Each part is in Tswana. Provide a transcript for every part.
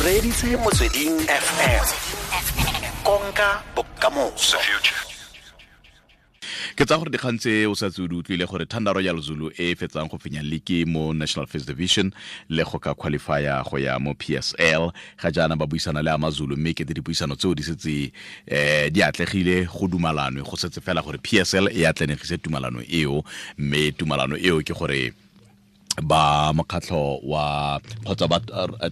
O reditse Motsweding FM, konka bokamoso. Ke tsa gore dikgang tse o sa tse o di utlwile gore Thunder Royal Zulu e fetsang go fenya league mo National First Division le go ka qualifya go ya mo PSL, ga jaana ba buisana le Amazulu, mme kete dipuisano tseo di setse di atlegile, go dumalanwe, go setse fela gore PSL e atlenegise tumalano eo. Mme tumalano eo ke gore ba mokgatlho wa kgotsa ba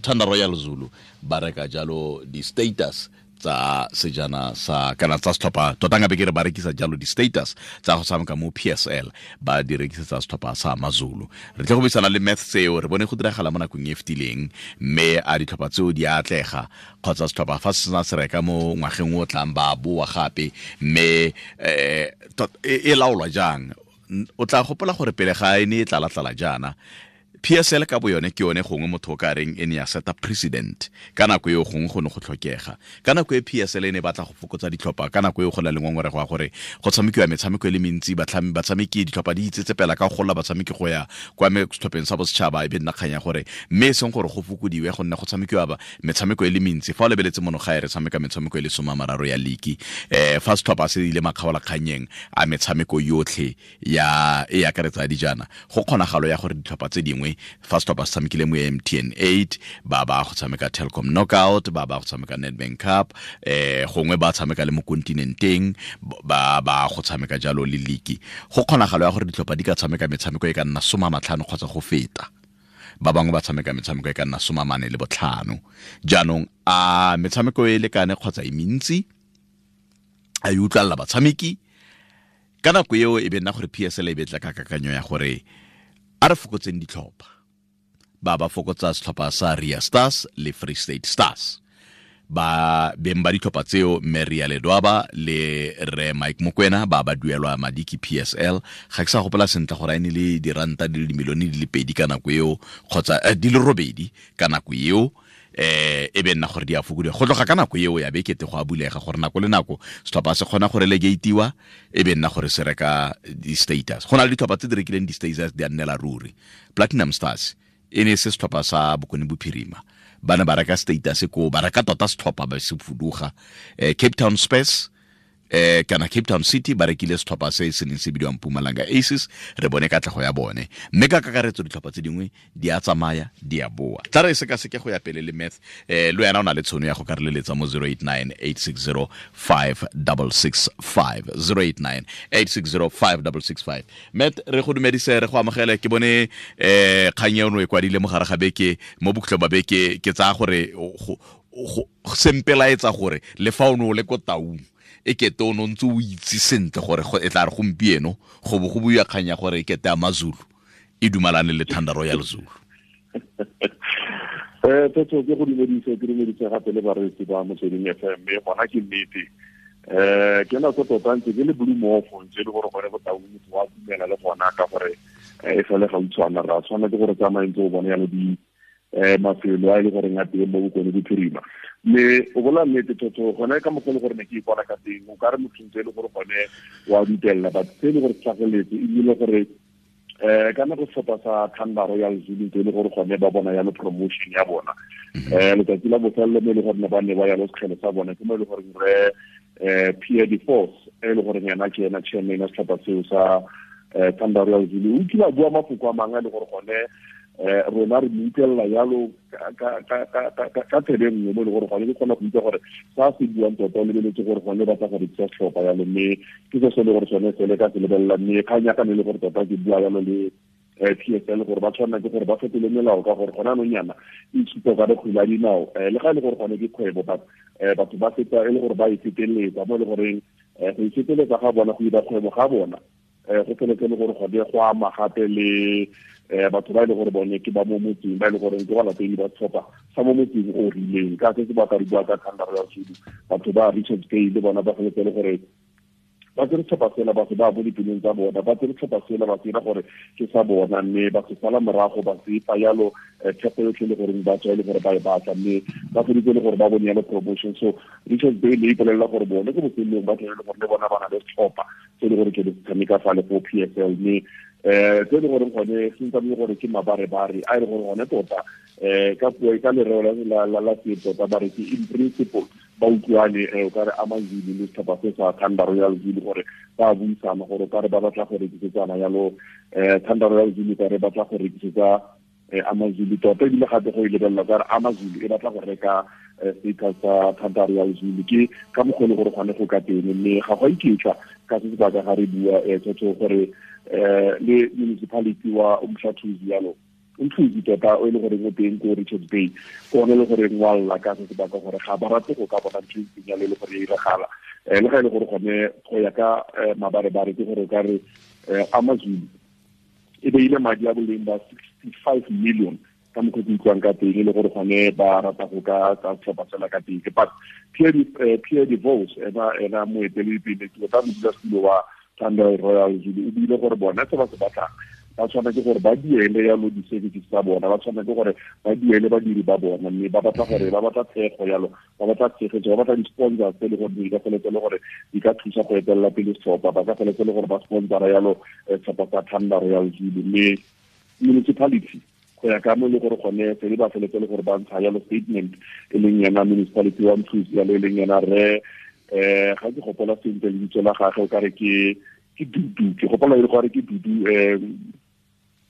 Thunder Royal Zulu ba reka jalo di-status tsa sejana sa kana tsa setlhopha tota, nka be ke re ba rekisa jalo di-status tsa go tshameka mo PSL, ba di rekisetsa setlhopha sa Amazulu. Re tle go buisana le math seo re bone go diragala mo nakong e fetileng, mme a ditlhopha tseo di atlega kgotsa setlhopha fa se sena se reka mo ngwageng o tlang ba boa gape, mme e laolwa jang? O tla gopola gore pele ga e ne e tlala-tlala jaana, PSL ka bo yone ke yone gongwe motho o ka reng e ne ya seta president ka nako eo, gongwe go ne go tlhokega ka nako e PSL e ne batla go fokotsa ditlhopha. Ka nako eo go na le ngongorego ya gore go tshamekiwa metshameko e le mentsi, batshameki, ditlhopha di itsetsepela ka go gola batshameki go ya kwa setlhopheng sa bosetšhaba, e be nna kgang ya gore mme e seng gore go fokodiwe gonne go tshamekiwa metshameko e le mentsi. Fa o lebeletse mono gae, re tshameka metshameko e le 30 ya league. Fa setlhopha se ile makgaolakgannyeng a metshameko yotlhe ya e akaretsa dijana, go kgonagalo ya gore ditlhopha tse dingwe, fa setlhopha se tshamekile mo MTN 8, ba ba go tshameka Telkom Knockout, ba ba go tshameka Nedbank Cup, gongwe ba tshameka le mo kontinenteng, ba ba go tshameka jalo le league, go kgonagalo ya gore ditlhopha di ka tshameka metshameko e ka nna 50 kgotsa go feta. Ba bangwe ba tshameka metshameko e ka nna 45. Jaanong a metshameko e lekane kgotsa e mentsi, a e utlwalela batshameki? Ka nako eo e be nna gore PSL e betla ka kakanyo ya gore a re fokotseng ditlhopha, ba ba fokotsa setlhopha sa Ria Stars le Free State Stars. Ba beng ba ditlhopha tseo, mme Ria Ledwaba le re Mike Mokwena, ba ba duelwa madi ke PSL. Ga ke sa gopola sentle gore a e ne le diranta di le dimilione di le 2 ka nako eo kgotsa di le 8 ka nako eo. E be nna gore di a fokodiwa. Go tloga ka nako eo ya be kete go a bulega gore nako le nako setlhopha se kgona go relegatewa, e be nna gore se reka di-status. Go na le ditlhopha tse di rekileng di-status di a nnela ruri. Platinum Stars e ne se setlhopha sa Bokone Bophirima, ba ne ba reka status ko, ba reka tota setlhopha ba se fuduga. Cape Town Space kana Cape Town City ba rekile setlhopha se se neng se bidiwang Mpumalanga Aces, re bone katlego ya bone. Mme ka kakaretso ditlhopha tse dingwe di a tsamaya, di a boa. Tla re sekaseke go ya pele le math. Le wena o na le tshono ya go ka re leletsa mo 089 860 5665, 089 860 5665. Matt, re go dumedise, re go amogele. Ke bone kgang eno e kwadile mo gare ga beke, mo bokhutlong ba beke. Ke tsaya gore sempelaetsa gore le fa o ne o le ko Taung, e kete o ne o ntse o itse sentle gore e tla re gompieno go bo go buiwa kgang ya gore e kete Amazulu e dumalane le Thunder Royal Zulu. Tsetso, ke go dumedise, ke dumedise gape le bareetsi ba Motsweding FM. Mme gona ke nnete, ke nako tota ntse ke le blue mofo, ntse e le gore gone Botaung motho wa dumela le gona ka gore e sale gautshwana ra tshwana ke gore tsamaye ntse o bone yalo di mafelo a e le goreng a teng mo Bokone Bophirima. Mme o bola nnete thotho, gone ka mokgwa le gore ne ke ipona ka teng, o ka re motho ntse e le gore gone wa dutelela, but se e le gore tlhageletse ebile gore ka nako setlhopha sa Thunder Royal Zulu e le gore gone ba bona yalo promotion ya bona, letsatsi la bofelelo mo e le gore ne ba ne ba yalo sekgele sa bona, ke mo e le gore re Pierre de Force, e le gore yena ke ena chairman ya setlhopha seo sa Thunder Royal Zulu, o kile a bua mafoko a mangwe a le gore gone rona re mo utlwelela yalo ka tsebe nngwe, mo e le gore gone ke kgona go utlwa gore sa se buang tota o lebeletse gore gone batla go rekisa setlhopha yalo. Mme ke se se le gore sone sele ka se lebelela. Mme kgang ya ka ne e le gore tota ke bua yalo le PSL gore ba tshwanela ke gore ba fetole melao, ka gore gone anong yana e supa ka re kgwele ya dinao, le ga e le gore gone ke kgwebo, but batho ba feta e le gore ba e feteletsa, mo e le goreng go e feteletsa ga bona, go ira kgwebo ga bona, go feletse le gore gone go ama gape le batho ba e le gore bone ke ba mo motseng, ba e le gore ke balatedi ba setlhopha sa mo motseng o rileng. Ka se se ba ka re bua ka Thunder Royal Zulu, batho ba Richards Bay le bona ba feletse le gore ba tsere setlhopha sela, ba se ba mo dipelong tsa bona, ba tsere setlhopha sela, ba se dira gore ke sa bona, mme ba se sala morago, ba se fa yalo theko yotlhe le goreng ba tswa e le gore ba e batla, mme ba feditse le gore ba bone yalo promotion. So Richards Bay le ipolelela gore bone ko bofelelong ba tlele gore le bona ba na le setlhopha se le gore ke le tshameka fa le go PSL. Mme tse e le gore gone se ntse gore ke mabarebare a e le gore gone tota. Ka puo ka lereo la setso ba re ke in principle ba utlwane, o ka re AmaZulu le setlhopha se sa Thunder Royal Zulu gore ba buisana gore o ka re ba batla go rekisetsana yalo, Thunder Royal Zulu ka re batla go rekisetsa AmaZulu tota, ebile gape go e lebelela ka re AmaZulu e batla go reka status sa Thunder Royal Zulu. Ke ka mokgwa e le gore gone go ka teng, mme ga go a iketla ka se sebaka ga re bua tsotso gore le municipality wa Umhlathuzi yalo, Umhluzi tota o e le goreng o teng ko Richards Bay, ke one e le goreng wa lla ka se sebaka gore ga ba rate go ka bona ntho e ntseng yalo e le gore e iragala. Le ga e le gore gone go ya ka mabarebare ke gore o ka re AmaZulu e beile madi a boleng ba 65 million ka mokgwa ke utlwang ka teng, e le gore gone ba rata go ka tsa setlhopha sela ka teng. But Pierre de Vos, ena moeteledipele tota modulasetulo wa Thunder Royal Zulu, o buile gore bona se ba se batlang ba tshwanetse gore ba duele yalo di-services tsa bona, ba tshwanetse gore ba duele badiri ba bona, mme ba batla gore ba batla thego yalo, ba batla tshegetso, ba batla di-sponsors tse e le gore di ka feletse le gore di ka thusa go etelela pele setlhopha, ba ka feletse le gore ba sponsora yalo setlhopha sa Thunder Royal Zulu. Mme municipality go ya ka mo e le gore gone se ba feletse le gore ba ntsha yalo statement, e leng yena municipality wa Mhluzi yalo, e leng yena re ga ke gopola sentle lebitso la gagwe, o ka re ke Dudu, ke gopola e le gore ke Dudu,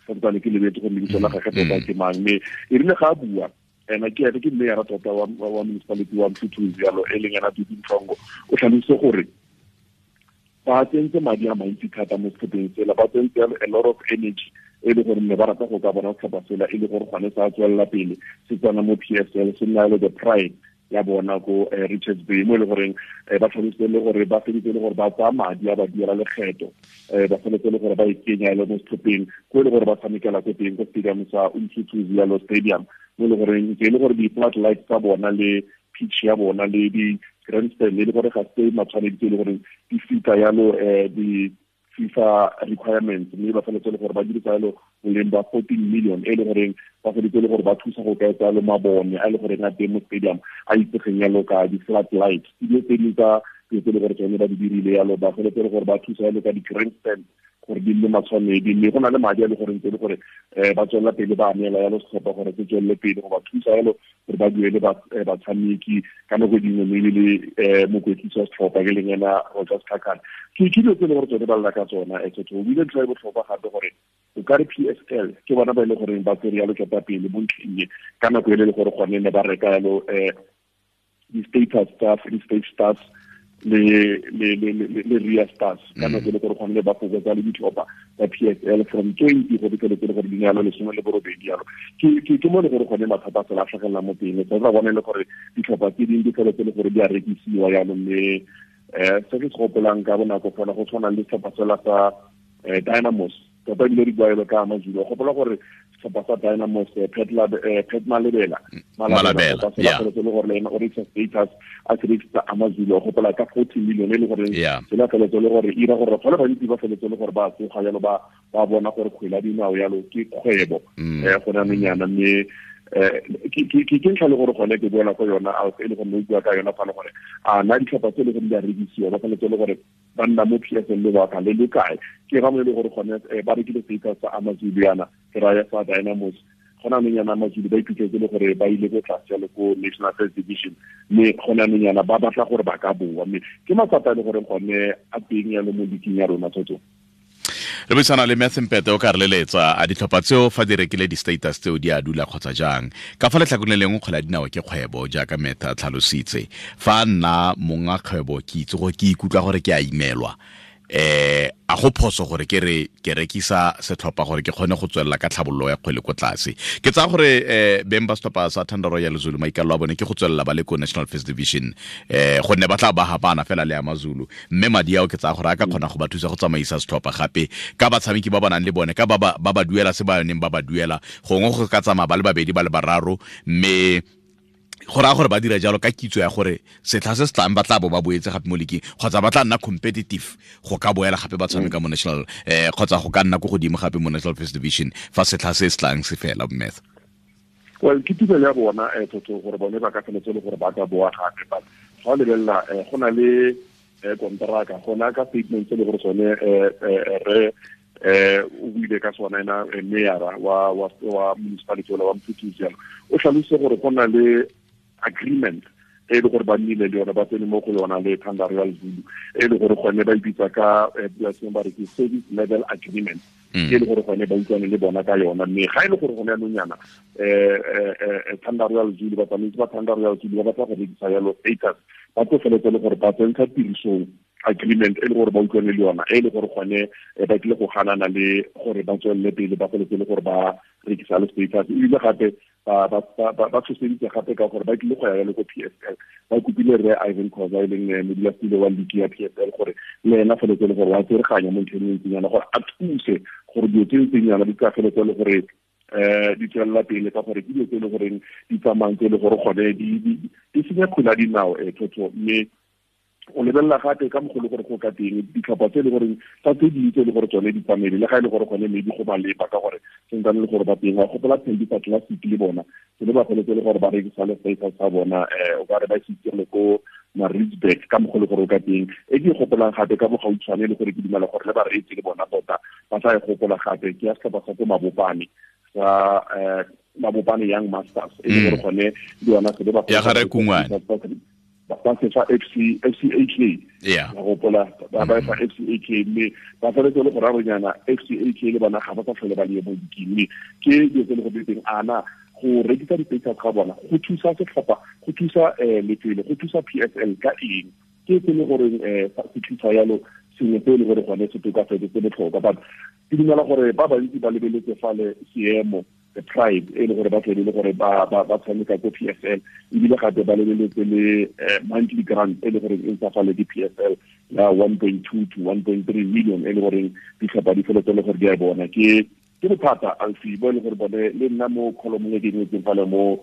santsane ke lebetse gore lebitso la gagwe tota ke mang. Mme e rile ga a bua ena ke ene ke mayor tota wa municipality wa Mhluzi yalo, e leng yena Dudu Mhlongo, o tlhalositse gore ba tsentse madi a mantsi thata mo setlhopheng sela, ba tsentse a lot of energy e le gore ne ba rata go ka bona setlhopha sela e le gore gone sa tswelela pele se tsena mo PSL, se nna le the pride ya bona ko Richards Bay, mo e le goreng ba tlhalositse le gore ba feditse le gore ba tsaya madi a ba duela lekgetho, ba feletse le gore ba ikenya le mo setlhopheng ko e le gore ba tshamekela ko teng ko stadium sa Umhlathuzi yalo stadium, mo e le goreng ke e le gore di-floodlights tsa bona le pitch ya bona le di-grandstand e le gore ga se matshwanedi tse e le goreng di fita yalo di FIFA requirements, mme ba feletse le gore ba dirisa yalo boleng ba 14 million e le goreng ba feletse le gore ba thusa go ka etsa yalo mabone a e le goreng a teng mo stadium a itsegeng yalo ka di-floodlights, dilo tse dingwe tsa dilo tse e le gore tsone ba di dirile yalo, ba feletse le gore ba thusa yalo ka di-grandstand gore di nne matshwanedi. Mme go na le madi a le goreng tse le gore ba tswelela pele ba neela yalo setlhopha gore se tswelele pele go ba thusa yalo gore ba duele batshameki ka nako dingwe, mme le mokwetlisi wa setlhopha ke leng ena Roger Sikhakhane. Ke dilo tse e le gore tsone ba lla ka tsona. Tsotho o bile ntlha e botlhokwa gape gore o ka re PSL ke bona ba e le goreng ba tsere yalo ketapele mo ntlheng e ka nako e le gore gone ne ba reka yalo di-status tsa Free State Stars le Ria Stars ka nako e le gore gone ba fokotsa le ditlhopha tsa PSL from 20 go fitlheletse le gore di nealo 18 yalo. Ke mo le gore gone mathata a sela a tlhagelela mo teng, sa tla bone le gore ditlhopha tse dingwe di feletse le gore di a rekisiwa yalo. Mme se ke se gopolang ka bonako fela go tshwana le setlhopha sela sa Dynamos, tota ebile di buaelo ka AmaZulu. Gopola gore setlhopha sa Dynamos, Pat Malabela, Malabela, se le gore le ena o rekisa status a se rekisa AmaZulu, gopola ka 40 million e le gore se la feletse le gore ira gore batho ba le bantsi ba feletse le gore ba tsoga yalo, ba bona gore kgwele ya dinao yalo ke kgwebo go na nonyana. Mme ke ntlha le gore gone ke boela ko yona e le gore o bua ka yona fa le gore a na ditlhopha tse e le gore di a rekisiwa ba feletse le gore ba nna mo PSL lebaka le le kae, ke ga mo e le gore gone ba rekile status sa AmaZulu yana, ke raya sa Dynamos, gona anong yana AmaZulu ba iphitlhetse le gore ba ile ko tlase yalo ko National First Division, mme gona anong yana ba batla gore ba ka boa. Mme ke matsapa a le gore gone a teng yalo mo leaking ya rona tsotso. Re buisana le Matthew Mpete o ka re leletsa a ditlhopha tseo fa di rekile di-status tseo di a dula kgotsa jang. Ka fa letlhakoreng le lengwe kgwele ya dinao ke kgwebo jaaka Matthew a tlhalositse. Fa nna monga kgwebo ke itse gore ke ikutlwa gore ke a imelwa, a go phoso gore ke re ke rekisa setlhopha gore ke kgone go tswelela ka tlhabololo ya kgwele ko tlase. Ke tsaya gore beng ba setlhopha sa Thunder Royal Zulu maikalelo a bone ke go tswelela ba le ko National First Division, gonne ba tla ba hapana fela le AmaZulu, mme madi ao ke tsaya gore a ka kgona go ba thusa go tsamaisa setlhopha gape ka batshameki ba ba nang le bone, ka ba ba duela se ba neng ba ba duela, gongwe go ka tsamaya ba le babedi ba le bararo, mme go raya gore ba dira jalo ka kitso ya gore setlha se se tlang ba tla bo ba boetse gape mo leaking, kgotsa ba tla nna competitive go ka boela gape ba tshameka mo national, kgotsa go ka nna ko godimo gape mo National First Division fa setlha se se tlang se fela, Matthew. Well, ke tumelo ya bona tsotso gore bone ba ka feletse le gore ba ka boa gape, but ga o lebelela go na le kontraka, gona ka statement se le gore sone re O buile ka sona ena mayor wa municipality wa Mpumalanga jalo o tlhalositse gore go na le agreement e le gore ba nnile le yone ba tsene mo go yona le Thanda Royal Zulu e le gore gone ba ipitsa ka puo ba re ke service level agreement e le gore gone ba utlwane le bona ka yona. Mme ga e le gore gone yanong yana Thanda Royal Zulu, batsamaisi ba Thanda Royal Zulu ba batla go rekisa yalo status, ba tlo feletse le gore ba tsentsha tirisong agreement e le gore ba utlwane le yona, e le gore gone ba tlile go ganana le gore ba tswelele pele ba feletse le gore ba rekisa le status. Ebile gape ba tshoseditse gape ka gore ba tlile go ya yalo ko PSL, ba kopile rre Ivan Khoza e leng modulasetulo wa league ya PSL gore le ena feletse le gore wa tsereganya mo ntlheng e ntseng yana gore a thuse gore dilo tse ntseng yana di ka feletse le gore di tswelela pele, ka gore ke dilo tse e le goreng di tsamayang tse e le gore gone di senya kgwele ya dinao thotho. Mme o lebelela gape ka mogolo gore go ka teng ditlhopha tse e le goreng tsa tse dingwe tse e le gore tsone di tsamaile, le ga e le gore gone maybe go maleba ka gore sentsane le gore ba teng wa gopola Thembisa Classic le bona se le ba feletse le gore ba rekisa le status sa bona, o ka re ba se le ko Maritzburg ka mogolo gore o ka teng. E ke gopolang gape ka bogautshwane le gore ke dumela gore le bareetsi le bona tota ba tla e gopola gape ke ya setlhopha sa ko Mabopane sa Mabopane Young Masters e le gore gone le yona se le ba ya gare Kungwane ba se fa FCAK ya gopola ba ba fa FCAK, mme ba feletse le go raronyana FCAK le bona ga ba sa tlhole ba le mo diking. Mme ke dilo tse le go teng ana go rekisa di-status ga bona go thusa setlhopha, go thusa lefelo, go thusa PSL ka eng, ke se le gore se thusa yalo sengwe se le gore gone se tokafetse se botlhokwa. But ke dumela gore ba bantsi ba lebeletse fale seemo the pride e le gore ba tlebe le gore ba tshameka ko PSL, ebile gape ba lebeletse le monthly grant e le gore e ntsa fale ke PSL ya 1.2 to 1.3 million e le gore ditlhopha di feletse le gore di a bona. Ke bothata alfi bo e le gore bone le nna mo column e ke ngwetseng fale mo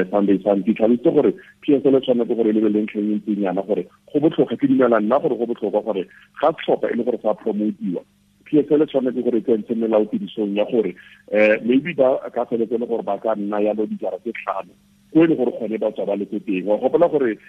Sunday Sun ke tlhalositse gore PSL e tshwanetse gore e lebelele ntlheng e ntseng yana gore go botlhokwa. Ke dumela nna gore go botlhokwa gore ga setlhopha e le gore sa promotiwa, PSL e tshwanetse gore e tsentshe melao tirisong ya gore maybe ba ka feletse le gore ba ka nna yalo dijara tse 5 ko e le gore gone ba tswa ba le ko teng. Wa gopola gore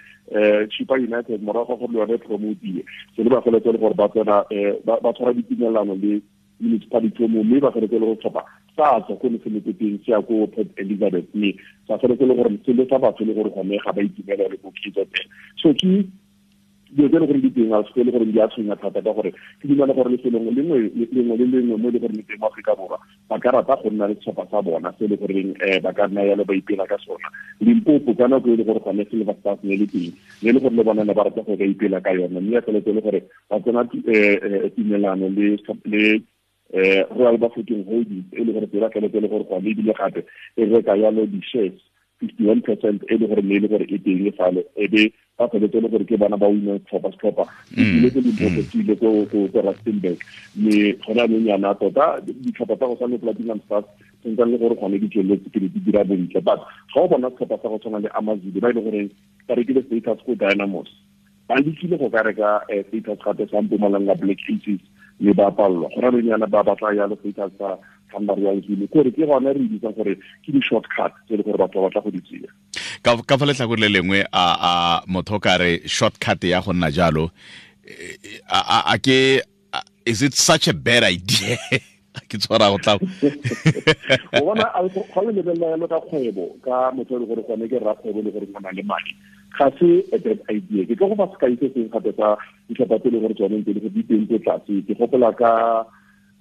Chippa United morago ga gore le yone promotiwe se le ba feletse le gore ba tsena ba tshwara ditumelano le municipality mo, mme ba feletse le go tlhopha sa tswa ko ne se le ko teng se ya ko Port Elizabeth, mme sa feletse le gore se le sa batho le gore gone ga ba itumela le ko KZN. So ke dilo tse e le gore di teng a se le gore di a tshwenya thata ka gore ke dumela gore lefelong lengwe le lengwe mo e le gore le teng mo Aforika Borwa ba ka rata go nna le setlhopha sa bona se e le goreng ba ka nna yalo ba ipela ka sona. Limpopo ka nako e le gore gone Silver Stars ne le teng, ne le gore le bona ne ba rata go ka ipela ka yona, mme ya feletse le gore ba tsena tumelano le Royal Bafokeng Holdings e le gore tsela feletse le gore gone ebile gape e reka yalo di-shares 51% e le gore ne e le gore e teng fale, e be ba feletse le gore ke bana ba wina setlhopha ile ko Limpopo, se ile ko Rustenburg. Mme gone anong yana tota ditlhopha tsa go tshwana le Platinum Stars sentsane le gore gone di tsweletse pele di dira bontle, but ga o bona setlhopha sa go tshwana le AmaZulu ba e le goreng ba rekile status ko Dynamos, ba lekile go ka reka status gape sa Mpumalanga Black Aces mme ba palelwa. Gone anong yana ba batla yalo status sa Thanda Royal Zulu, kore ke gone re bitsang gore ke di-shortcut tse e le gore batho ba batla go di tseya. Ka fa letlhakore le lengwe a motho ka re shortcut ya go nna jalo a ke is it such a bad idea? Ke tshwara go tla o bona ga o lebelela yalo ka kgwebo ka motho e le gore gone ke rrakgwebo le gore o na le madi, ga se a bad idea. Ke tlo go fa sekai se sengwe gape sa ditlhopha tse e le gore tsone ntse di teng ko tlase. Ke gopola ka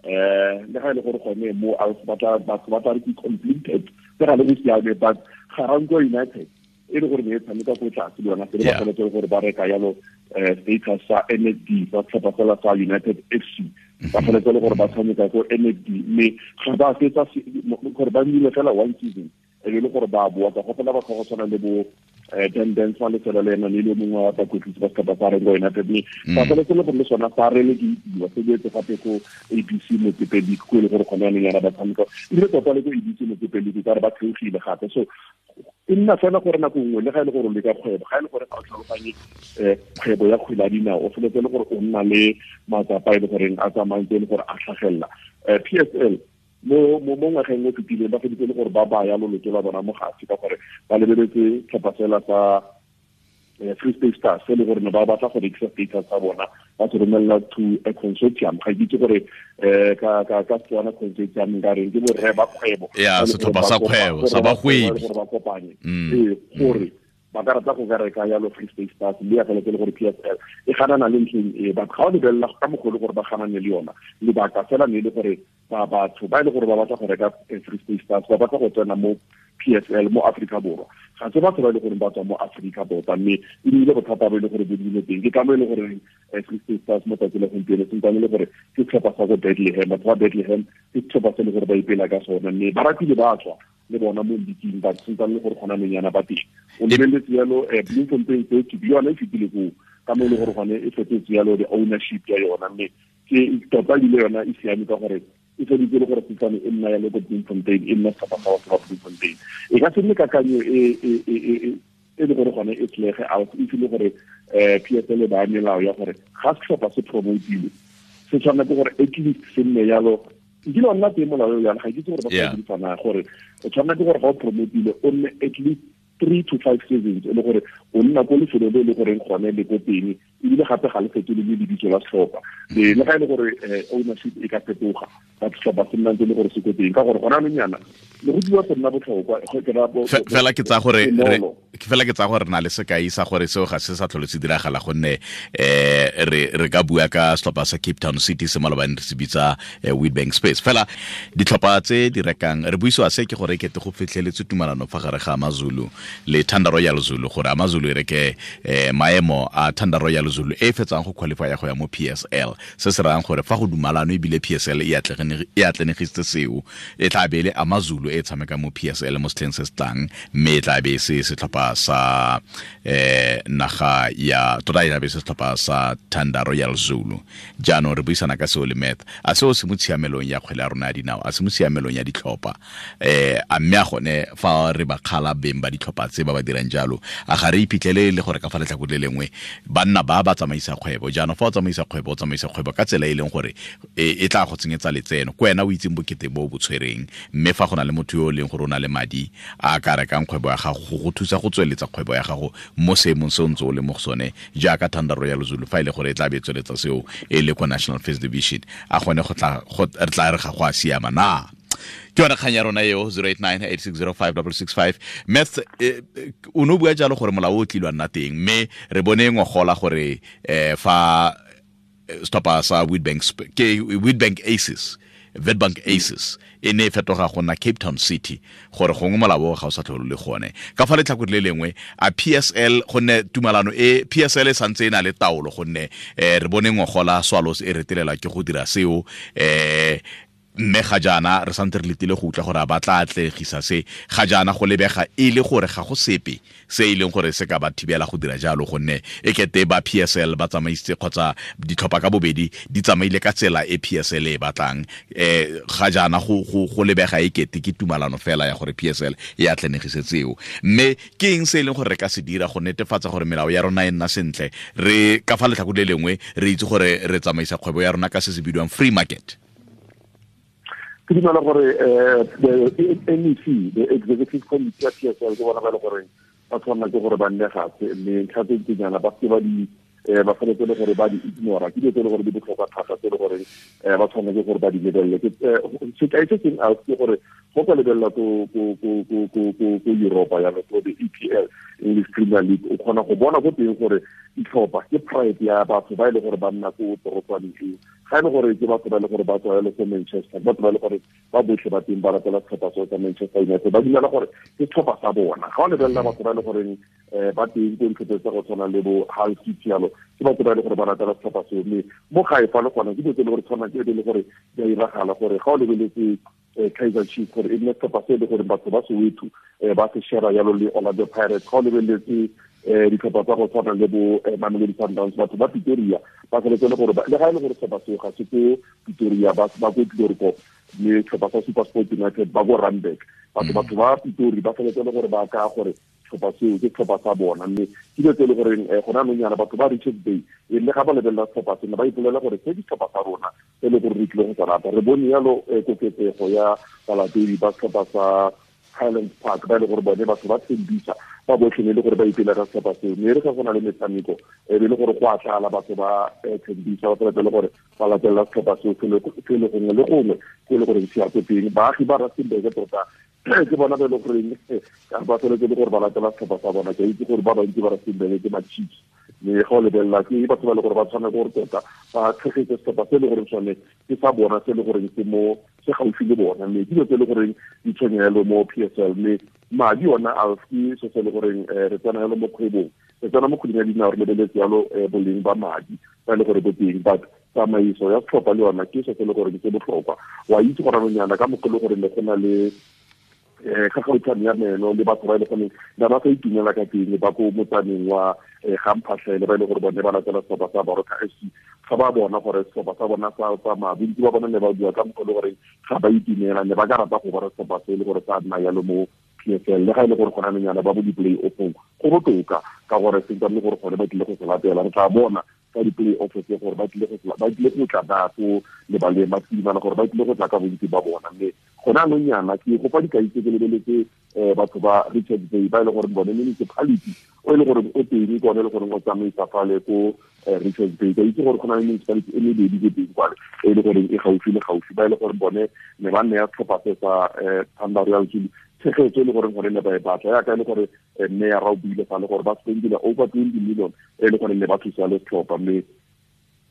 le ga e le gore gone mo batho ba tla re ke completed tse ga le go siame, but Garankuwa United e le gore ne e tshameka ko tlase le yona se le ba feletse gore ba reka yalo status sa NFD sa setlhopha sela sa United FC, ba feletse le gore ba tshameka ko NFD, mme ga ba fetsa gore ba nnile fela one season e be le gore ba boa. Ka gopola batho go tshwana le bo Dan Dance wa lefelo le ena le le mongwe wa bakwetlisi ba setlhopha sa Rengo United, mme ba feletse le gore le sona sa relekeitiwa se boetse gape ko ABC Motsepe League ko e le gore gone yanong yana ba tshameka, ebile tota le ko ABC Motsepe League ka re ba theogile gape. So e nna fela gore nako nngwe le ga e le gore o leka kgwebo, ga e le gore ga o tlhaloganye kgwebo ya kgwele ya dinao, o feletse le gore o nna le matsapa e le goreng a tsamayang e le gore a tlhagelela. PSL mo ngwageng o fetileng ba feditse le gore ba baya loloto la bona mo gase ka gore ba lebeletse tlhopha fela sa Free State Stars se le gore ne ba batla go rekisa status sa bona ba se romelela to a consortium. Ga ke itse gore ka ka ka Setswana consortium nka reng, ke borre ba kgwebo, ya setlhopha sa kgwebo sa bagwebi, gore ba kopanye ee gore ba ka rata go ka reka yalo Free State Stars, mme ya feletse le gore PSL e ganana le ntlheng e. But ga o lebelela ka mogolo gore ba ganane le yona, lebaka fela ne e le gore ba batho ba e le gore ba batla go reka Free State Stars, ba batla go tsena mo PSL mo Afrika Borwa, ga se batho ba e le gore ba tswa mo Afrika tota, mme e nnile bothata bo e le gore bo dile teng. Ke ka mo e le gore Free State Stars mo tsatsi la gompieno sentse le gore ke setlhopha sa ko Bethlehem. Batho ba Bethlehem ke setlhopha se e le gore ba ipela ka sone, mme ba ratile ba tswa le bona mo leaking, ba sentse le gore gona nonyana ba teng. O lebeletse yalo Bloemfontein Celtic, yone e fetile koo ka mo e le gore gone e fetotse yalo the ownership ya yona, mme ke tota ebile yona e siame ka gore e feditse le gore setsane e nna yalo ko Bloemfontein, e nna setlhopha sa batho ba Bloemfontein. E ka se nne kakanyo e e le gore gone e tlege out, e file gore PSL ba melao ya gore ga setlhopha se promotilwe se tshwanela ke gore at least se nne yalo. Nkile wa nna teng molao yana, ga ke itse gore ba sa dirisana, gore o tshwanela ke gore ga o promotile o nne at least 3 to 5 seasons e le gore o nna ko lefelo le le goreng gone le ko teng, ebile gape ga le fetole le lebitso la setlhopha, le ga e le gore ownership e ka fetoga, ba setlhopha se nna ntse le gore se ko teng, ka gore gona anong yana le go dira go nna botlhokwa. Fela ke tsa gore fela ke tsa gore re na le sekai sa gore seo ga se sa tlhole se diragala, gonne re ka bua ka setlhopha sa Cape Town City se malobane re se bitsa Witbank Space. Fela ditlhopha tse di rekang, re buisiwa se ke gore kete go fitlheletse tumalano fa gare ga AmaZulu le Thanda Royal Zulu, gore AmaZulu e reke maemo a Thanda Royal Zulu e fetsang go qualify go ya mo PSL, se se rayang gore fa go dumalano ebile PSL e atlenegisitse seo, e tla be le AmaZulu e tshameka mo PSL mo setlheng se se tlang, mme e tla be se setlhopha sa naga ya tota e tla be se setlhopha sa Thanda Royal Zulu. Jaanong re buisana ka seo le Math, a seo se mo tshiamelong ya kgwele ya rona ya dinao, a se mo tshiamelong ya ditlhopha, a mme a gone fa re ba kgala beng ba ditlhopha tse ba ba dirang jalo, a ga re iphitlhele le gore ka fa letlhakore le lengwe banna ba ba tsamaisa kgwebo. Jaanong fa o tsamaisa kgwebo, o tsamaisa kgwebo ka tsela e leng gore e tla go tsenyetsa letseno, ko wena o itseng bokete bo bo tshwereng, mme fa go na le motho yo o leng gore o na le madi a ka rekang kgwebo ya gago go go thusa go tsweletsa kgwebo ya gago mo seemong se o ntse o le mo go sone, jaaka Thanda Royal Zulu fa e le gore e tla be e tsweletsa seo e le ko National First Division, a gone go tla re tla re ga go a siama na? Ke yone kgang ya rona eo, 0898605665. Math, o ne o bua jalo gore molao o tlilwa nna teng, mme re bone ngogola gore fa setlhopha sa Witbank, ke Witbank Aces, Witbank Aces e ne e fetoga go nna Cape Town City, gore gongwe molao ga o sa tlhole le gone. Ka fa letlhakore le lengwe a PSL, gonne tumalano e PSL e santse e na le taolo, gonne re bone ngogola Swallows e retelela ke go dira seo, mme ga jaana re santse re letile go utlwa gore a ba tla atlegisa se. Ga jaana go lebega e le gore ga go sepe se e leng gore se ka ba thibela go dira jalo, gonne e kete ba PSL ba tsamaisitse kgotsa ditlhopha ka bobedi di tsamaile ka tsela e PSL e batlang. Ga jaana go lebega e kete ke tumalano fela ya gore PSL e atlenegise tseo. Mme ke eng se e leng gore re ka se dira go netefatsa gore melao ya rona e nna sentle, re ka fa letlhakore le lengwe re itse gore re tsamaisa kgwebo ya rona ka se se bidiwang free market? Ke dumela gore the NEC, the Executive Committee ya PSL, ke bona ba le gore ba tshwanela ke gore ba nne gape, mme ntlha tse ntsinyana ba se ba di ba tshwanetse le gore ba di ignora, ke dilo tse e le gore di botlhokwa thata tse e le gore ba tshwanela ke gore ba di lebelele. Sekai se sengwe ke gore go ka lebelela ko Europa yalo, ko the EPL, English Premier League, o kgona go bona ko teng gore ditlhopha ke pride ya batho ba e le gore ba nna ko torotswaneng eo. Ga e le gore ke batho ba e le gore ba tswa yalo ko Manchester, batho ba e le gore ba botlhe ba teng ba ratela setlhopha sa Manchester United, ba dumela gore ke setlhopha sa bona. Ga o lebelela batho ba e le goreng ba teng ko ditlhopheng tsa go tshwana le bo Hull City yalo, ke batho ba e le gore ba ratela setlhopha seo. Mme mo gae fa le gona ke dilo tse e le gore tshwana ke e le gore di a iragala, gore ga o lebeletse Kaizer Chiefs gore e nne setlhopha se e le gore batho ba Soweto ba se share yalo le Orlando Pirates. Ga o lebeletse ditlhopha tsa go tshwana le bo Mamelodi Sundowns, batho ba Pretoria ba tshwanetse le gore le ga e le gore setlhopha seo ga se ko Pretoria, ba ko Chloorkop, mme setlhopha sa SuperSport United ba ko Randburg, batho ba Pretoria ba tshwanetse le gore ba ka gore setlhopha seo ke setlhopha sa bona. Mme ke dilo tse e le goreng gona anong yana batho ba Richards Bay e le ga ba lebelela setlhopha sena ba ipolela gore se ke setlhopha sa rona e le gore re tlile go se rata. Re bone yalo koketsego ya balatedi ba setlhopha sa Highlands Park, ba e le gore bone batho ba Tembisa ba botlhe ne e le gore ba ipela ka setlhopha seo. Mme e re ga go na le metshameko e be e le gore go a tlala batho ba Tembisa, ba feletse le gore ba latelela setlhopha seo se le gongwe le gongwe ko e le goreng se ya ko teng. Baagi ba Rustenburg tota ke bona ba e le goreng ba feletse le gore ba latela setlhopha sa bona. Ke a itse gore ba bantsi ba Rustenburg ke ma-Chiefs, mme ga o lebelela ke batho ba e le gore ba tshwana gore tota ba tshegetse setlhopha se e le goreng sone ke sa bona, se e le goreng se mo se gaufi le bona. Mme dilo tse e le goreng di tshwenyelo mo PSL, mme madi ona a ke se se le goreng re tsena yalo mo kgwebong, re tsena mo kgweding ya dinao, re lebeletse yalo boleng ba madi ba e le gore bo teng, but tsamaiso ya setlhopha le yona ke se se le goreng se botlhokwa. Wa itse gore anonyana ka mokgwa e le gore ne go na le kgakgautshwane ya meno le batho ba e le goreng ba ba sa itumela ka teng ba ko motsaneng wa Gamphatlhele, ba e le gore bone ba latela setlhopha sa Baroka FC. Ga ba bona gore setlhopha sa bona sa tsamaya, bontsi ba bona ne ba bua ka mokgwa e le gore ga ba itumela, ne ba ka rata go bona setlhopha se e le gore sa nna yalo mo PSL, le ga e le gore gona anonyana ba bo di-play offong go botoka, ka gore se ntse gore gone ba tlile go se latela. Re tla bona ka di-play off tse gore ba tlile go tla ba ko lebaleng ba tsidimana, gore ba tlile go tla ka bontsi ba bona. Mme gone anong yana ke go fa dikai tse ke lebeletse batho ba Richards Bay, ba e le gore bone municipality o e le gore o teng ke one e le goreng o tsamaisa fale ko Richards Bay. Ka itse gore go na le municipality e mebedi ko teng kwale e le goreng e gaufi le gaufi, ba e le gore bone ne ba nne ya setlhopha se sa Thunder Royal Zulu tshegetso e le goreng gore ne ba e batla, yaka e le gore mme ya ra o buile fa le gore ba spendile over 20 million e le gore ne ba thusa le setlhopha. Mme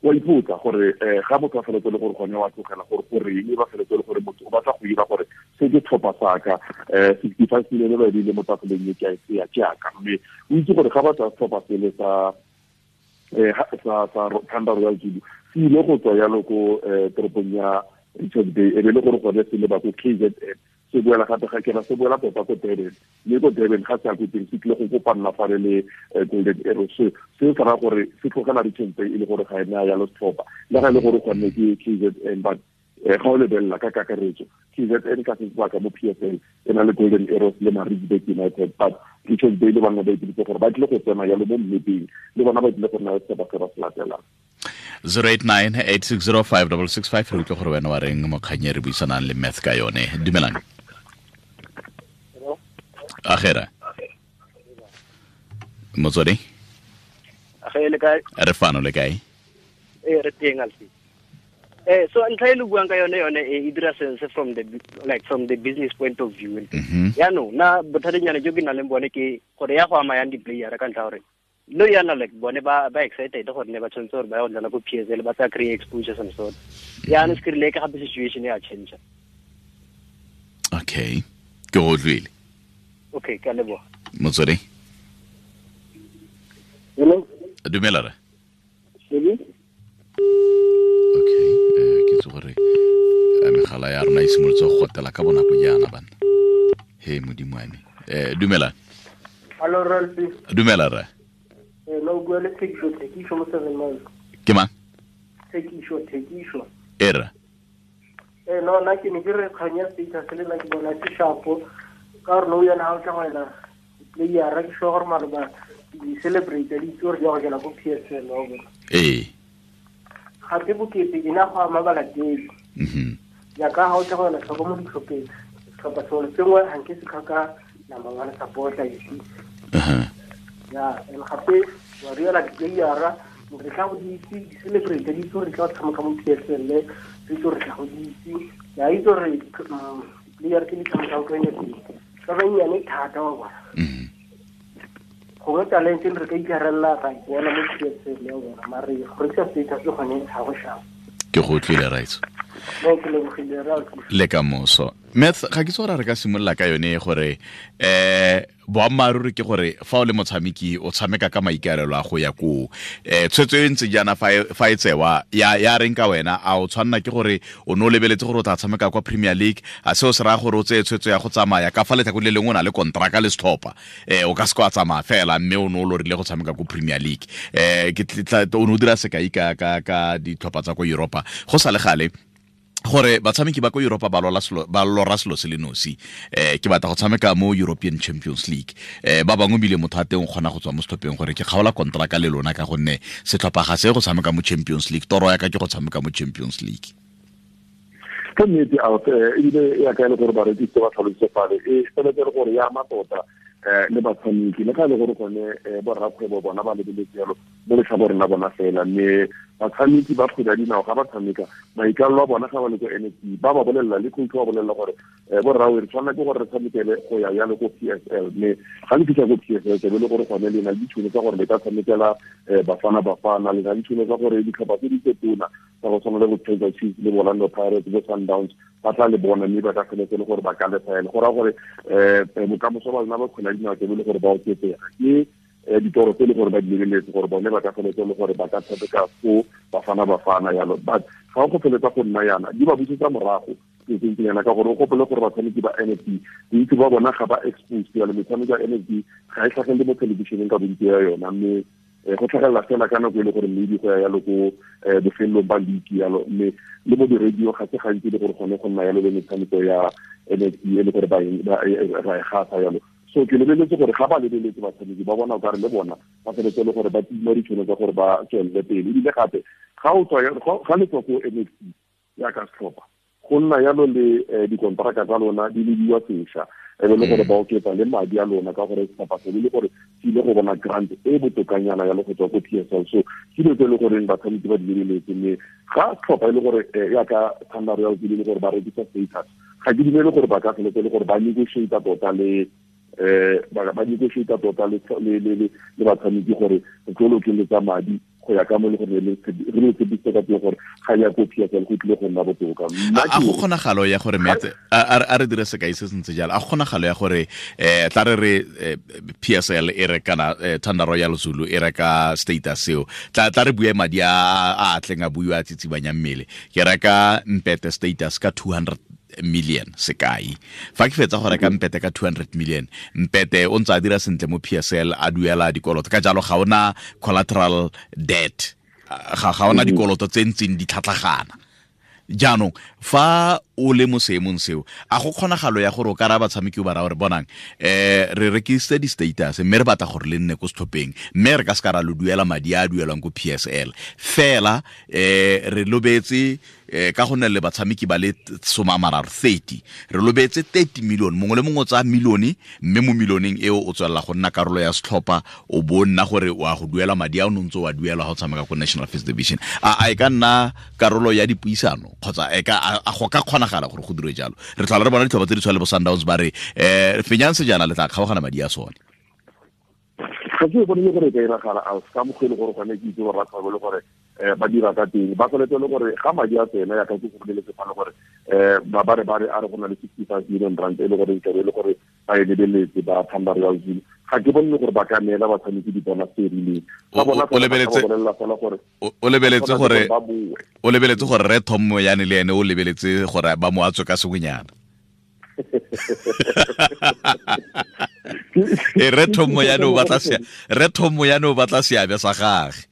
wa ipotsa gore ga motho a feletse le gore gone wa tlogela gore goreng ba feletse le gore motho o batla go ira gore se ke tlhopha sa ka 65 million ba e beile mo tafoleng e ke a e tseya ke yaka. Mme o itse gore ga ba tsaya setlhopha sele sa Thunder Royal Zulu se ile go tswa yalo ko toropong ya Richards Bay, e be le gore gone se leba ko KZN, se boela gape ga kena se boela tota ko Durban, mme ko Durban ga se ya ko teng se tlile go kopanna fale le Golden Arrows. Se se raya gore se tlogela Richards Bay e le gore ga e naya yalo setlhopha, le ga e le gore gone ke KZN, but ga o lebelela ka kakaretso KZN ka se sebaka mo PSL e na le Golden Arrows le Maritzburg United, but Richards Bay le bona ba ipiditse gore ba tlile go tsena yalo mo mmepeng, le bona ba tlile go nna le setlhopha se ba se latelang. 089-860-5665 re utlwe gore wena wa reng mo kgang e re buisanang le Math ka yone. Dumelang. Agera. Motswedi? Age le kae? Re fano le kae? Re teng alfi. So ntlha e le buang ka yone yone e dira sense from the like from the business point of view. Yaanong na bothatanyana jo ke nang le bone ke gore ya go ama yang di-player ka ntlha gore no yana like bone ba excited gore ne ba tshwanetse gore ba ya go dlala ko PSL, ba tsa kry exposure some sort. Yaanong se ke rile ka gape situation ya change. Okay, ke go utlwile. Okay, ka leboga. Motswedi? Hello. Dumela re. Sebe? Okay, ke itse gore megala ya rona e simolotse go gotela ka bonako jaana bana. He modimo wa me. Dumela. Hello Ralphi. Dumela re. No bua le Thekiso mo 7 Miles. Ke mang? Thekiso. Era. No nna ke ne ke re kgang ya status le nna ke bona ke sharpo ka gore no yana ha o tla go ela player ke sure gore maloba di celebrate di itse gore di ya go jela ko PSL wa bona. Gape bokete e na go ama balatedi. Jaaka ha o tla go ela tlhoko mo ditlhopheng, setlhopha sengwe le sengwe ga nke se tlhoka number one supporter, you see. Ya, and gape wa reela di-playera re tla go di itse, di celebrate di itse gore di tla go tshameka mo PSL, re itse gore tla go di itse. Ya itse gore di-player tse di tshamekang ko ene ba bannyane thata wa bona. Gongwe talente re ka ikarella ra ipona mo PSL ya bona, mare go rekisa status le gone ga go sharp. Ke go utlwile raitso. Le ka moso. Math, ga ke itse gore re ka simolola ka yone gore boammaaruri ke gore fa o le motshameki o tshameka ka maikaelelo a go ya koo. Tshwetso e ntse jaana fa e tsewa ya reng ka wena, a o tshwanna ke gore o ne o lebeletse gore o tla tshameka kwa Premier League, a seo se raya gore o tseye tshwetso ya go tsamaya ka fa letlhakore le lengwe o na le kontraka le setlhopha, o ka se ka wa tsamaya fela mme o ne o lorile go tshameka ko Premier League. Ke o ne o dira sekai ka ditlhopha tsa ko Europa go sa le gale gore batshameki ba ko Europa ba lora selo se le nosi. Ke batla go tshameka mo European Champions League. Ba bangwe bile motho a teng o kgona go tswa mo setlhopheng gore ke kgaola kontraka le lona ka gonne setlhopha ga se go tshameka mo Champions League, toro ya ka ke go tshameka mo Champions League. Ke nnete ebile ya ka e le gore barekisi ba tlhalositse fale e feletse le gore ya ama tota le batshameki le ga e le gore gone borrakgwebo bona ba lebeletse jalo mo letlhakoreng la bona fela, mme batshameki ba kgwele ya dinao ga ba tshameka maikalelo a bona ga ba le ko NSC ba ba bolelela le coach ba bolelela gore borrawe re tshwanela ke gore re tshamekele go ya jalo ko PSL, mme ga le fitlha ko PSL tlabe le gore gone le na le ditšhono tsa gore le ka tshamekela Bafana Bafana, le na le ditšhono tsa gore ditlhopha tse di tse tona tsa go tshwana le bo Kaizer Chiefs le Orlando Pirates bo Sundowns ba tla le bona, mme ba ka feletse le gore ba ka lefaela. Go raya gore bokamoso ba lona ba kgwele ya dinao tlabe le gore ba oketsega ke ditoro tse le gore ba di lebeletse gore bone ba ka feletse le gore ba ka tshameka ko Bafana Bafana yalo. But ga go feletsa go nna yana di ba busetsa morago yana ka gore o gopole gore batshameki ba NFD bontsi ba bona ga ba exposed yalo, metshameko ya NFD ga e tlhagelele mo thelebišeneng ka bontsi ya yona, mme go tlhagelela fela ka nako e le gore maybe go ya yalo ko bofelelong ba league yalo, mme le mo di-radio ga se gantsi le gore gone go nna yalo le metshameko ya NFD e le gore ra e gasa yalo. So ke lebeletse gore ga ba lebeletse batshameki ba bona o kare le bona ba feletse le gore ba tima ditšhono tsa gore ba tswelele pele. Ebile gape ga o tswa ga le tswa ko NFD ya ka setlhopha go nna yalo le dikontraka tsa lona di lediwa sešwa, e be le gore ba oketsa le madi a lona ka gore setlhopha se le gore se ile go bona grant e botokanyana yalo go tswa ko PSL. So ke dilo tse e le goreng batshameki ba di lebeletse, mme ga setlhopha e le gore yaka Thunder Royals e le gore ba rekisa status, ga ke dumele gore ba ka feletse le gore ba negotiate tota le ba negotiate tota le batshameki gore re tlo lokeletsa madi go ya ka mo le gore re le tshepisitse ka teng gore ga ya ko PSL go tlile go nna botoka. A go kgonagalo ya gore metse a re dire sekai se sentse jalo, a go kgonagalo ya gore tla re re PSL e re kana Thunder Royal Zulu e reka status seo, tla re bue madi a tleng a buiwa a tsitsibanya mmele, ke reka Mpete status ka 200 million sekai, fa ke fetsa go reka Mpete ka 200 million, Mpete o ntse a dira sentle mo PSL a duela dikoloto, ka jalo ga ona collateral debt, ga ona dikoloto tse ntseng di tlhatlhagana. Jaanong fa o le mo seemong seo, a go kgonagalo ya gore o ka raya batshameki o ba raya gore bonang re rekisitse di-status mme re batla gore le nne ko setlhopheng, mme re ka se ka ra lo duela madi a a duelwang ko PSL fela, re lobetse ka go nne le batshameki ba le 30, re lobetse 30 million, mongwe le mongwe o tsaya milione, mme mo milioneng eo o tswelela go nna karolo ya setlhopha, o bo nna gore o a go duela madi a o ntse o a duela ga o tshameka ko National First Division. A e ka nna karolo ya dipuisano kgotsa e ka a go ka kgonagala gore go dirwe jalo? Re tlhola re bona ditlhopha tse di tshwana le bo Sundowns ba re fenyang sejana le tla kgaogana madi a sone. Ga ke bone gore e ka iragala a ka mokgwa e le gore gone ke itse borrakgwebo le gore ba dira ka teng, ba tshwanetse le gore ga madi a tsena ya ka ke go boleletse fa le gore ba ba re ba re a re go na le 65 million rand e le gore e le gore ba e lebeletse ba Thunder Royal Zulu, ga ke bone gore ba ka neela batshameki di-bonus tse rileng. Ba bona O lebeletse gore o lebeletse gore ba boe. O lebeletse gore re Tom Moyane le ene o lebeletse gore ba mo atswe ka sengwenyana. Re Tom Moyane o batla se, re Tom Moyane o batla seabe sa gagwe.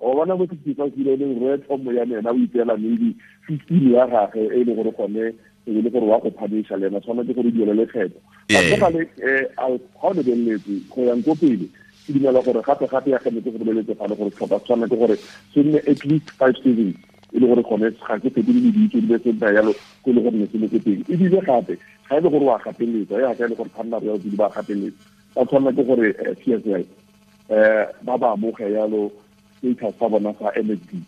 O bona mo 65 million re Tom Moyane ena o ipeela maybe 15 ya gagwe e le gore gone e le gore wa go phanisha le ena tshwanetse gore duele lekgetho. Ga le ga o lebeletse go yang ko pele, ke dumela gore gape gape ya gane ke go lebeletse fa le gore setlhopha tshwanetse gore se nne at least 5 seasons e le gore gone ga ke fetole le ditso di be se nna yalo ko le gore ne se le ko teng. Ebile gape ga e le gore wa gapeletsa, ya ga e le gore Thunder Royal Zulu ba gapeletsa, ba tshwanela ke gore PSL ba ba amoge yalo status sa bona sa NFD,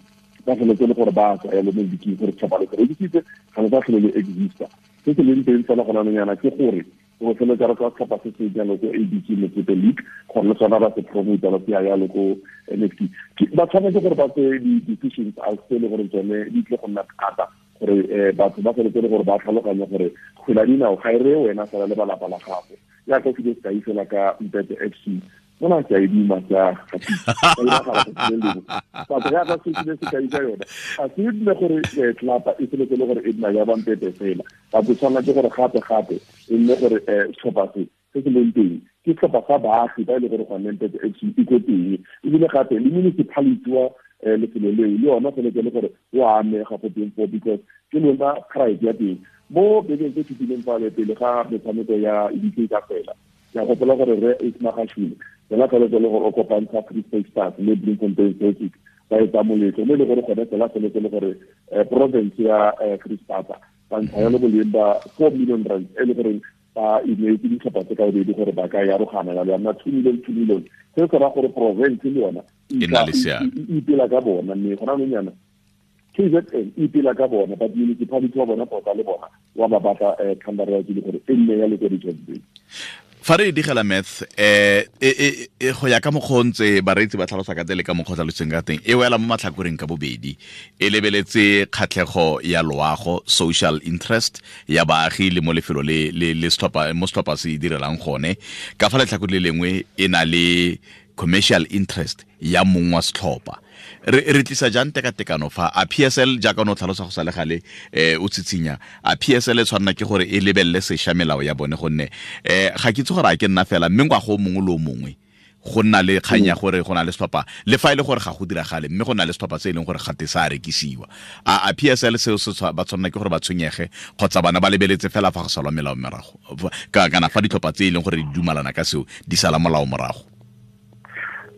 ba feletse le gore ba tswa yalo mo league gore setlhopha le se rekisitse ga le sa tlhole le exista. Se se leng teng fela gona nyana ke gore go feletsa re ka setlhopha se se jalo ko ABC Motsepe League gore le sona ba se promote ba se ya yalo ko NFD. Ba tshwanetse gore ba tseye di-decisions a se le gore tsone di tle go nna thata gore batho ba feletse le gore ba tlhaloganye gore kgwele ya dinao ga e reye wena fela le balapa la gago. Jaaka ke sekai fela ka Mpete FC, mona ke a e duma ka batho ga ba se ke sekai ka yona, ga se nne gore tlelapa e feletse le gore e nna ya ba Mpete fela, batho tshwanela ke gore gape gape e nne gore setlhopha se se se leng teng ke setlhopha sa baagi ba e le gore gone Mpete FC e ko teng, ebile gape le municipality wa lefelo leo le yona feletse le gore o amega go teng foo because ke lona pride ya teng. Mo bekeng tse fetileng fale pele ga metshameko ya league ka fela, ke a gopola gore re Ismagashule yena feletse le gore o kopantsha Free State Stars le Bloemfontein Celtic, Ba etsa moletlo mo e le gore gone fela feletse le gore province ya Free State ba ntsha yalo boleng ba 4 million rand e le gore ba ineetse ditlhopha tse ka bobedi gore ba ka yarogana yalo ya nna 2 million 2 million. Se se raya gore province le yona e na le seabe, e ipela ka bona, mme gona anong yana KZN e ipela ka bona, but municipality wa bona tota le bona wa ba batla Thanda Royal Zulu gore e nne ya le ko Richards Bay. Fa re digela math go ya ka mokgwa o ntse bareetsi ba tlhalosa ka teng le ka mokgwa o tlhalositseng ka teng, e wela mo matlhakoreng ka bobedi, e lebeletse kgatlhego ya loago, social interest ya baagi le mo lefelo le le setlhopha mo setlhopha se direlang gone. Ka fa letlhakore le lengwe e na le commercial interest ya mong wa setlhopha. Re tlisa jang tekatekano fa a PSL jaaka o tlhalosa go sa le gale, o tshitsinya a PSL e tshwanela ke gore e lebelele sešwa melao ya bone, gonne ga ke itse gore a ke nna fela, mme ngwaga o mongwe le o mongwe go nna le kgang ya gore go na le setlhopha, le fa e le gore ga go diragale, mme go na le setlhopha se e leng gore gate sa rekisiwa. A PSL seo se ba tshwanela ke gore ba tshwenyege, kgotsa bana ba lebeletse fela fa go salwa melao morago, kana fa ditlhopha tse e leng gore di dumalana ka seo di sala molao morago?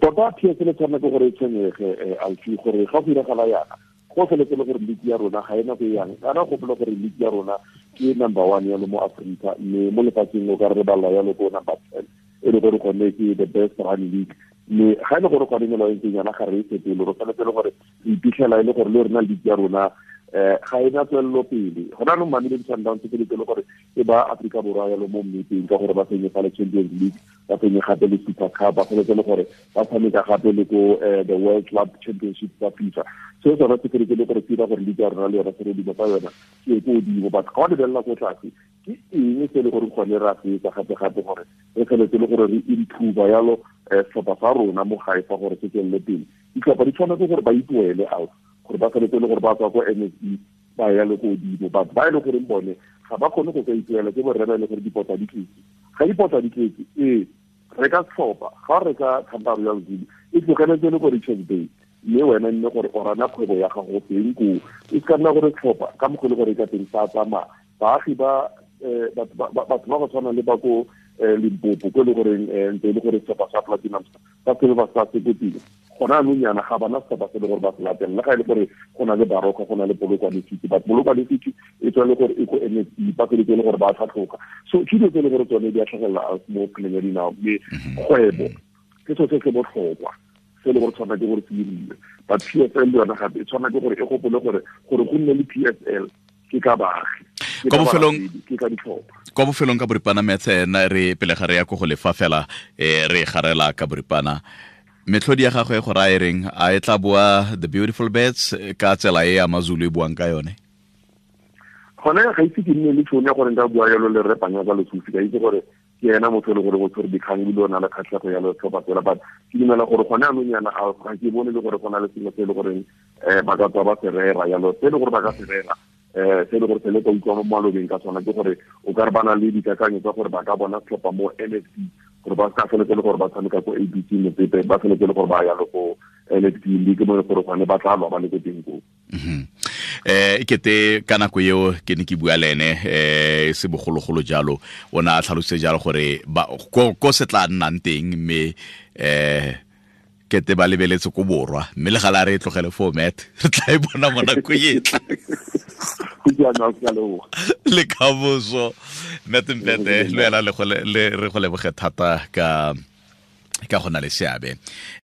Tota PSL e tshwanela ke gore e tshwenyege, Alfi, gore ga go diragala yana go feletse le gore league ya rona ga ena go yang. Kana gopola gore league ya rona ke number 1 yalo mo Afrika, mme mo lefatsheng o ka re balla yalo ko number 10, e le gore gone ke the best run league. Mme ga e le gore gone melao e ntseng yana ga re e fetole, re tshwanetse le gore re iphitlhela e le gore le rona league ya rona ga ena tswelelo pele. Gona anong Mamelodi Sundowns e feletse le gore e ba Afrika Borwa yalo mo mmepeng ka gore ba fenye fa le Champions League, ba fenye gape le Super Cup, ba feletse le gore ba tshameka gape le ko the World Club Championship tsa FIFA. Seo sona se feletse le gore se dira gore league ya rona le yona se re tsa yona ke ko godimo. But ga o lebelela ko tlase, ke eng se e le gore gone re a se etsa gape-gape gore re feletse le gore re improve yalo setlhopha sa rona mo gae fa gore se tswelele pele? Ditlhopha di tshwanetse gore ba ipoele out, gore ba feletse le gore ba tswa ko NSB ba ya le ko godimo. But ba e le goreng bone ga ba kgone go ka ipoela, ke borre ba e le gore dipota di tletse. Ga dipota di tletse, ee, re ka setlhopha ga re ka Thanda Royal Zulu e tlogeletse le ko Richards Bay, mme wena nne gore o rana kgwebo ya gago teng koo. E se ka nna gore setlhopha ka mokgwa e le gore e ka teng sa tsamaya baagi ba batho ba go tshwana le ba ko Limpopo, ko e le goreng ntse e le gore setlhopha sa Platinum sa Silver Stars se ko pele. Gona anong yana ga bana setlhopha se le gore ba se latelela, le ga e le gore go na le Baroka, go na le Polokwane City, but Polokwane City e tswa le gore e ko NSB, ba feletse le gore ba tlhatlhoga. So ke dilo tse e le gore tsone di a tlhagelela mo kgweleng ya dinao, mme kgwebo ke selo se se botlhokwa se e le gore tshwana ke gore se dirilwe. But PSL le yona gape e tshwana ke gore e gopole gore go nne le PSL ke ka baagi, Kwa bofelong, ke ka ditlhopha. Kwa bofelong ka boripana metse na re pele ga re ya ko go lefa fela, re garela ka boripana. Metlhodi ya gagwe go raya reng? A e tla boa The Beautiful Birds ka tsela e AmaZulu e buang ka yone? Gone ga itse ke nne le tšhono ya gore nka bua yalo le Rre Panyaza Lesufi, ka itse gore ke ena motho e le gore o tshwere dikgang ebile o na le kgatlhego ya setlhopha sela. But ke dumela gore gone anong yana ga ke bone le gore go na le sengwe se e le goreng ba ka tswa ba se rera yalo, se e le gore ba ka se rera se e le gore se le ka utlwa mo malobeng ka sona, ke gore o ka re ba na le dikakanyo tsa gore ba ka bona setlhopha mo NSB, gore ba ka feletse le gore ba tshameka ko ABC Motsepe, ba feletse le gore ba ya le ko NSB League mo e le gore gone ba tla lwa ba le ko teng koo. E kete ka nako eo ke ne ke bua le ene se bogologolo jalo, o ne a tlhalositse jalo gore ko se tla nnang teng, mme kete ba lebeletse ko borwa, mme le gale a re e tlogele foo, Matt, re tla e bona mo nako e tla. Le kamoso Matt Mpete, le wena re go leboge thata ka go na le seabe.